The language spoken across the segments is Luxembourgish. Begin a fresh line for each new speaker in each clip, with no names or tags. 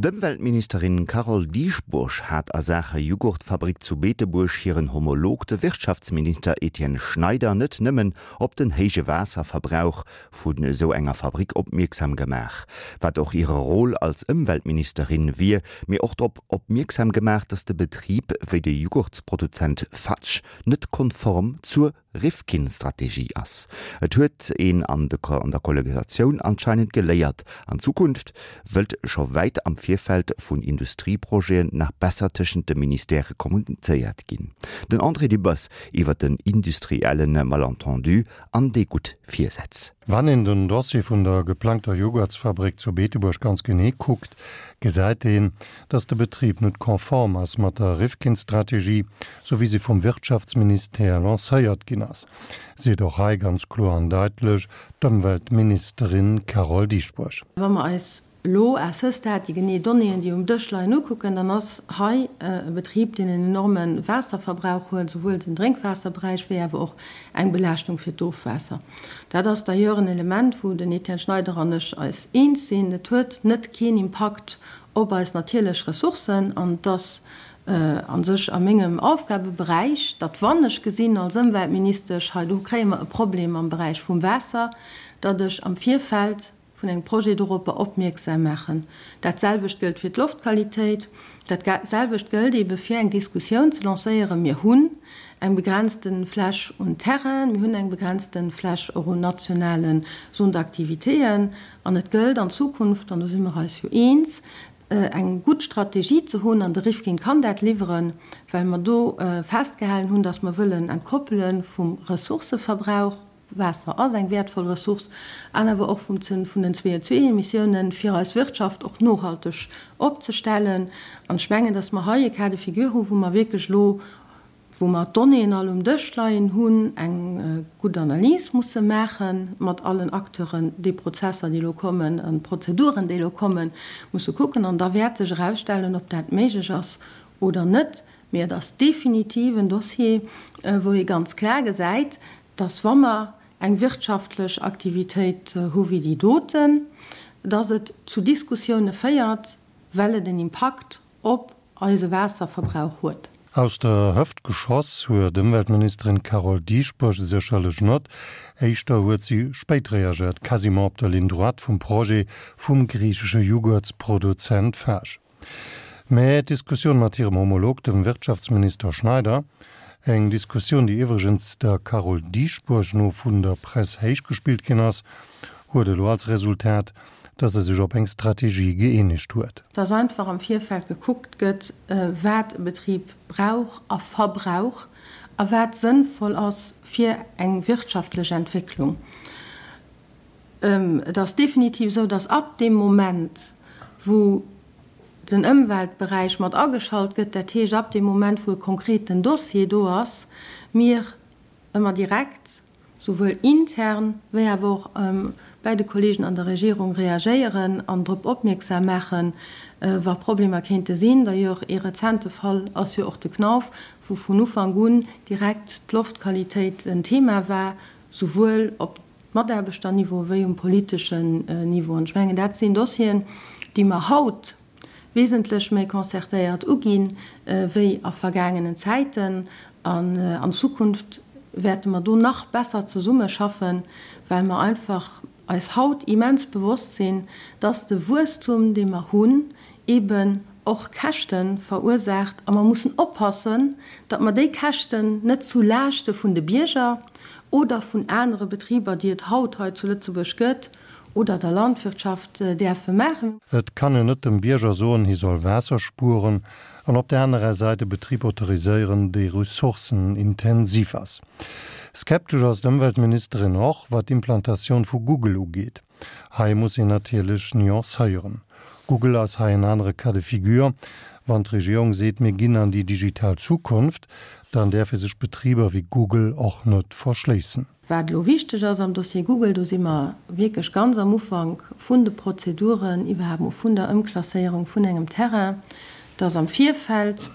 D'Ëmweltministerin Carole Dieschbourg hat a Saache Jughurtfabrik zu Beetebuerg hiren Homolog, de Wirtschaftsminister Etienne Schneider, net nëmmen op den héije Waasserverbrauch vun esou enger Fabrik opmierksam gemaach, wat och hire Rôle als Ëmweltministerin wier, mee och drop opmierksam gemaach, datt de Betrib, wéi de Jughurtsproduzent Fatsch, net konform zur Rifkin-Strategie ass. Et huet een an der Kollegisatioun anscheinend geléiert, an Zukunft wëllt scho wäit am Virfeld vun Industrieprojeten nach besser tëschent de Ministèrë kommunizéiert ginn. Den André Dübbers iwwer den industrielle Malentendu an déi gutt Virsätz.
Wann een den Dossier vun der geplangter Joghurtsfabrik zu Beetebuerg ganz genee kuckt, gesäit een, dass de Betrib net konform ass mat der Rifkin-Strategie, sou wéi se vum Wirtschaftsministère lancéiert ginn ass, seet och hei ganz kloer an daitlech d'Ëmweltministerin Carole Dieschbourg.
Wa mer eis elo à ce stade déi genee Donnéeën, déi um Dësch leien, ukucken, dann ass hei e Betrib, deen en enorme Waasserverbrauch huet, souwuel den Drénkwaasserberäich wéi awer och eng Belaaschtung fir d'Ofwaasser. Dat ass d'ailleurs en Element, wou den Etienne Schneider an ech eis eens sinn. Et huet net keen Impakt op eis natierlech Ressourcen an et ass a sech a mengem Aufgabeberäich, datt wann ech gesinn als Ëmweltministesch, hei do kréie mer e Problem am Beräich vum Waasser, datt ech am Virfeld vun engem Projet doropper opmierksam maachen. Dat selwecht gëllt fir d'Loftqualitéit. Dat selwecht gëllt eebe fir eng Diskussioun ze lancéieren. Mir hunn eng begrenzte Fläch un Terrainen, mir hunn eng begrenzte Fläch och un nationale Zones d'activitéen an et gëllt an Zukunft, an do si mer eis jo eens, eng gutt Strategie ze hunn, an de Rifkin kann dat liwweren, well mer do festgehalen hunn, datt mer wëllen entkoppele vum Ressourcëverbrauch, Waasser ass eng wäertvoll Ressource, an awer och vum vun den CO2-Emissiounen, fir eis Wirtschaft och nohalteg opzestellen. An ech mengen, datt mer hei e Cas de figure hu wou mer wierklech elo wou mer d'Donnéeën all um Dësch leien hunn, eng gutt Analys musse maache mat allen Acteuren, déi Prozesser, déi elo kommen, an d'Prozeduren, déi elo kommen, musse kucken. An da wäert sech erausstellen, ob dat méiglech ass oder net. Mee et ass definitiv en Dossier, wou ee ganz klar gesäit, dass, wa mer eng wirtschaftlech Aktivitéit hu wéi déi doten, dass et zu Diskussioune féiert, well et en Impakt op eise Waasserverbrauch huet.
Aus der Hëft geschoss huet Ëmweltministerin Carole Dieschbourg sécherlech net. Éischter huet si spéit reagéiert, quasiment op der Ligne droite vum Projet vum griichesche Jughurtsproduzent Fage. Mä d'Diskussioun mat hirem Homolog, dem Wirtschaftsminister Schneider, eng Diskussioun, déi iwwregens der Carole Dieschbourg no vun der Press héichgespillt ginn ass, huet elo als Resultat, dass e sech op eng Strategie gëeenegt huet.
Dass einfach am Virfeld gekuckt gëtt, wat e Betrib brauch a verbrauch a wat sënnvoll ass fir eng wirtschaftlech Entwécklung. Et ass definitiv esou, dass ab deem Moment, wou den Ëmweltberäich mat ageschalt gëtt, dat heescht ab deem Moment, wou e konkreten Dossier do ass, mir ëmmer direkt souwuel intern wéi awer och bäi de Kollegen an der Regierung reagéieren an drop opmierksam maachen, wa Problemer kéinte sinn. D'ailleurs, ee rezente Fall ass jo och de Knauf, wou vun Ufank un direkt d'Loftqualitéit en Thema war, souwuel op Mataarbechterniveau wéi um politeschen Niveau. An ech mengen, dat sinn Dossieren, déi mer haut wesentlech méi concertéiert uginn, wéi a vergaangenen Zäiten. An an Zukunft wäerte mer do nach besser zesummeschaffen, well mer einfach eis haut immens bewosst sinn, dass de Wuesstum, dee mer hunn, eeben och Käschte verursaacht. A mer mussen oppassen, datt mer déi Käschten net zu Laaschte vun de Bierger oder vun anere Betriber, déi et haut hei zu Lëtzebuerg gëtt, oder der Landwirtschaft däerfe maachen.
Et kann een net dem Bierger soen, hie soll Waasser spueren, an op der anerer Säit e Betrib autoriséieren, dee ressourcenintensiv ass. Skeptesch ass d'Ëmweltministerin och, wat d'Implantatioun vu Google ugeet. Hei muss een natierlech nuancéieren. Google ass hei en anere Cas de figure. Wann d'Regierung seet, mir ginn an déi digital Zukunft, dann däerfe sech Betriber wéi Google och net verschléissen.
Wat elo wichteg ass am Dossier Google, do si mer wierklech ganz am Ufank vun de Prozeduren, iwwerhaapt mol vun der Ëmklasséierung vun engem Terrain, dass am Virfeld.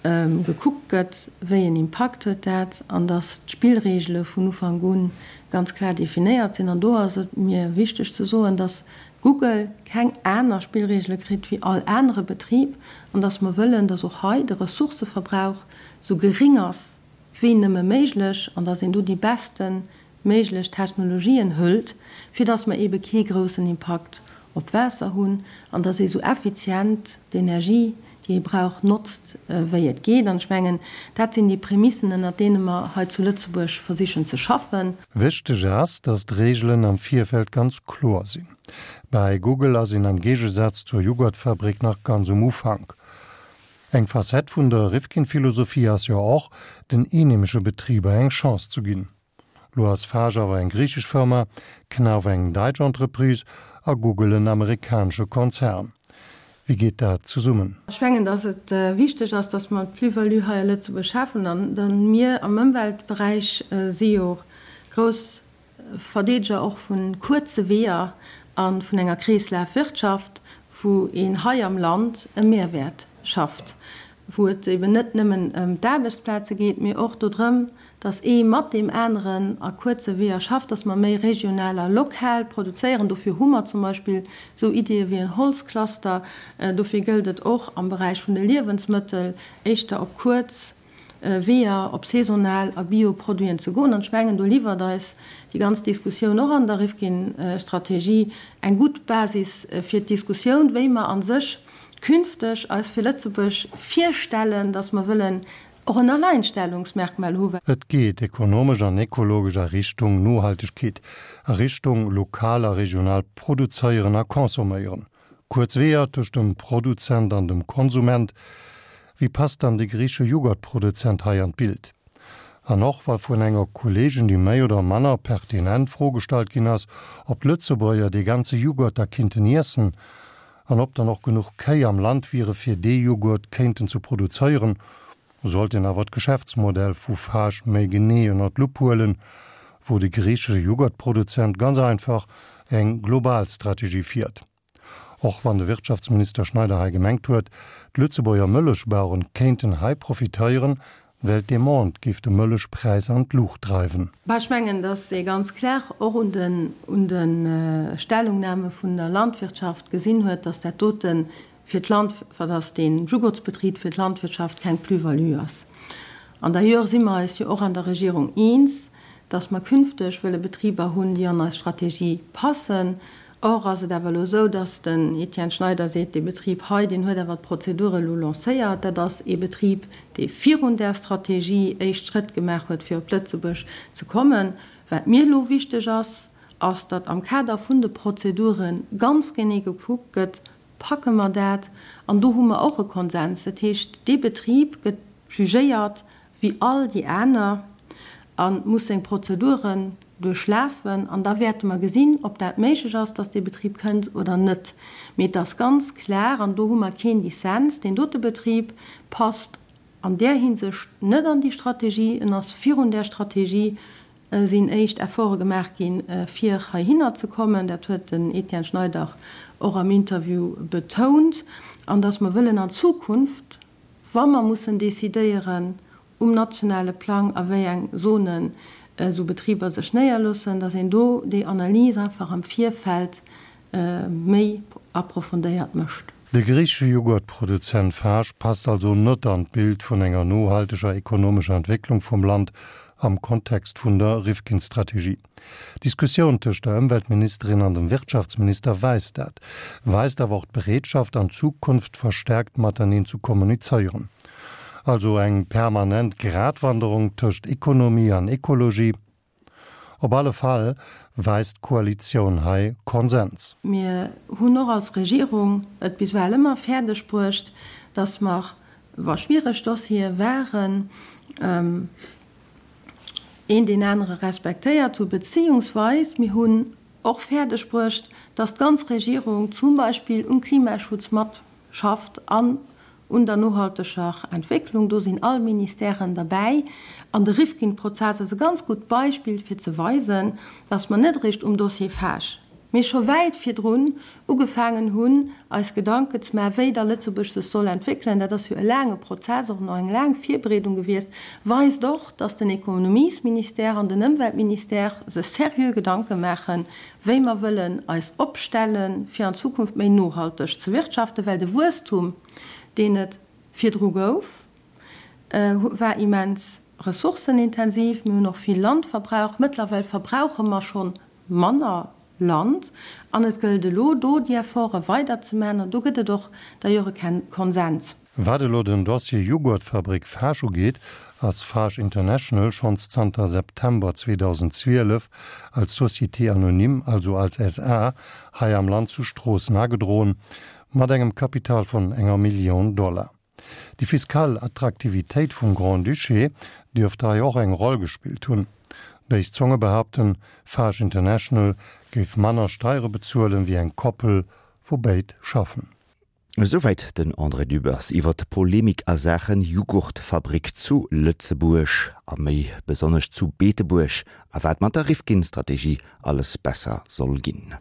gekuckt gëtt, wéi en Impakt huet dat, an dass d'Spillregele vun Ufank u ganz klar definéiert sinn. An do ass et mir wichteg ze soen, dass Google keng aner Spillregele kritt wéi all anere Betrib an dass mer wëllen, dass och hei de Ressourcëverbrauch esou geréng ass wéi nëmme méiglech an dass een do déi beste méiglech Technologien hëlt, fir dass mer eebe kee groussen Impakt op d'Waasser hunn an dass ee sou effizient d'Energie, déi ee brauch, notzt, wéi et geet. An ech mengen, dat sinn déi Prämissen, ënnert deene mer hei zu Lëtzebuerg versichen ze schaffen.
Wichteg ass, dass d'Reegelen am Virfeld ganz kloer sinn. Bäi Google ass een am Géigesaz zur Jughurtfabrik nach ganz um Ufank. Eng Facette vun der Rifkin-Philosophie ass jo och, den eenheemesche Betriber eng Chance zu ginn. Lo ass Fage awer eng griichesch Firma, Knauf eng däitsch Entreprise a Google en amerikanesche Konzern. Wéi geet dat zesummen?
Ech mengen, datt et wichteg ass, datt mer d'Plus-value hei a Lëtzebuerg schafen. An mir am Ëmweltberäich si jo grouss Verdeedeger och vu kuerze Weeër a vun enger Kreeslafwirtschaft, wou een hei am Land e Mehrwäert schafft, wou et eben net nëmmen ëm d'Aarbechtsplaze geet, mee och dodrëm, dass ee mat deem aneren a kuerze Weeër schafft, dass mer méi regional a lokal produzéieren. Dofir hu mer zum Beispill esou Ideeë wéi en Holzcluster. Dofir gëllt et och am Beräich vun de Liewensmëttel éischter op kuerz Weeër, op saisonal a Bio-Produiten ze goen. An ech mengen, do liwwert eis déi ganz Diskussioun och an der Rifkin-Strategie eng gutt Basis fir d'Diskussioun, wéi mer a sech künfteg eis fir Lëtzebuerg virstellen, dass mer wëllen och en Alleinstellungsmerkmal hu.
Et geet ekonomesch an ekologesch a Richtung Nohaltegkeet, a Richtung lokal a regional produzéieren a consomméieren. Kuerz Weeër tëscht dem Produzent an dem Konsument. Wéi passt dann de griichesche Jughurtproduzent hei an d'Bild? An och wa vun enger Kolleegin déi méi oder manner pertinent Fro gestallt ginn ass, ob d'Lëtzebuerger dee ganze Jughurt da kinnten iessen, An ob dann och genuch Kéi am Land wiere fir dee Jughurt kéinten ze produzéieren, sollt een awer d'Geschäftsmodell vu Fage méi genee ënner d'Lupp huelen, wou de griichesche Jughurtproduzent ganz einfach eng global Strategie fiert. Och wann de Wirtschaftsminister Schneider hei gemengt huet, d'Lëtzebuerger Mëllechbaueren kéinten hei profitéieren, Well d'Demande géif de Mëllechpräis an d'Luucht dreiwen.
Bah, ech mengen, datt ee ganz klar och un den, un de Stellungnahme vun der Landwirtschaft gesinn huet, datt dat dote fir d'Land, datt dee Jugurtsbetrib fir d'Landwirtschaft keng Plus-value ass. An d'ailleurs si mer eis jo och an der Regierung eens, datt mer künfteg wëlle Betriber hunn, déi an eis Strategie passen, Or ass et awer elo esou, dass den Etienne Schneider seet, dee Betrib hei, deen huet awer d'Prozedur elo lancéiert. Dat ass ee Betrib, dee virun där Strategie éischt Schrëtt gemaach huet, fir op Lëtzebuerg ze kommen. Wat mir elo wichteg ass, ass, datt am Kader vun de Prozedure ganz genee gekuckt gëtt, Packe mer dat? An do hu mer och e Konsens. Dat heescht, dee Betrib gëtt jugéiert wéi all déi aner a muss seng Prozeduren duerchlafen an da wäerte mer gesinn, ob dat méiglech ass, dass dee Betrib kënnt oder net. Mee et ass ganz klar, an do hu mer keen Dissens, deen dote Betrib passt an där Hinsicht net an déi Strategie. En ass virun där Strategie sinn éischt Efforte gemaach ginn, fir heihinner ze kommen. Dat huet den Etienne Schneider och am Interview betount. An dass mer wëllen an Zukunft, wa mer mussen decidéieren um nationale Plang, a wéi eng Zonen esou Betriber sech néierloossen, dass een do déi Analys einfach am Virfeld méi approfondéiert mécht.
De griichesche Jughurtproduzent Fage passt also net an d'Bild vun enger nohalteger ekonomescher Entwécklung vum Land am Kontext vun der Rifkin-Strategie. D'Diskussioun tëscht der Ëmweltministerin an dem Wirtschaftsminister weist dat, weist awer och d'Bereetschaft, an Zukunft verstärkt mateneen ze kommunizéieren. Also eng permanent Gratwanderung tëscht Ekonomie an Ekologie. Op alle Fall weist d'Koalitioun hei Konsens.
Mir hunn och als Regierung et bis ewell ëmmer fäerdeg bruecht, dass mer, wa schwiereg Dossiere waren, een deen anere respektéiert hu beziehungsweis mir hunn och fäerdeg bruecht, dass d'ganz Regierung zum Beispill um Klimaschutz matschafft an un der nohalteger Entwécklung. Do sinn all Ministèren derbäi. An de Rifkin-Prozess ass e ganz gutt Beispill fir ze weisen, dass mer net eréischt um Dossier Fage. Mee scho wäit virdrun ugefaangen hunn, eis Gedanken ze maachen, wéi da Lëtzebuerg sech soll entwéckelen, dat ass jo e laange Prozess, och nach eng laang Virbereedung gewiescht, weist och, dass den Ekonomiesministère an den Ëmweltministère sech seriö Gedanke maachen, wéi mer wëllen eis opstellen, fir an Zukunft méi nohalteg ze wirtschaften, well de Wuesstum, deen et virdru gouf, war immens ressourcenintensiv. Mir hunn och vill Land verbraucht. Mëttlerweil verbrauche mer scho manner Land an et gëllt elo do déi Efforte weiderzemaachen an do gëtt et och d'ailleurs e Konsens.
Wat elo den Dossier Jughurtfabrik Fage ugeet, ass Fage International schonns zanter September 2012 als Société anonyme, also als SA, hei am Land zu Stroossen agedroen, mat engem Kapital vun enger Millioun Dollar. Déi fiskal Attraktivitéit vum Grand-Duché dierft hei och eng Roll gespillt hunn. Béis Zonge behaupten, Fage International géif manner Steiere bezuelen, wéi eng Koppel, wou béid schaffen.
Esouwäit den André Dübbers iwwer d'Polemik a Saachen Jughurtfabrik zu Lëtzebuerg a méi besonnesch zu Beetebuerg a wat mat der Rifkin-Strategie alles besser soll ginn.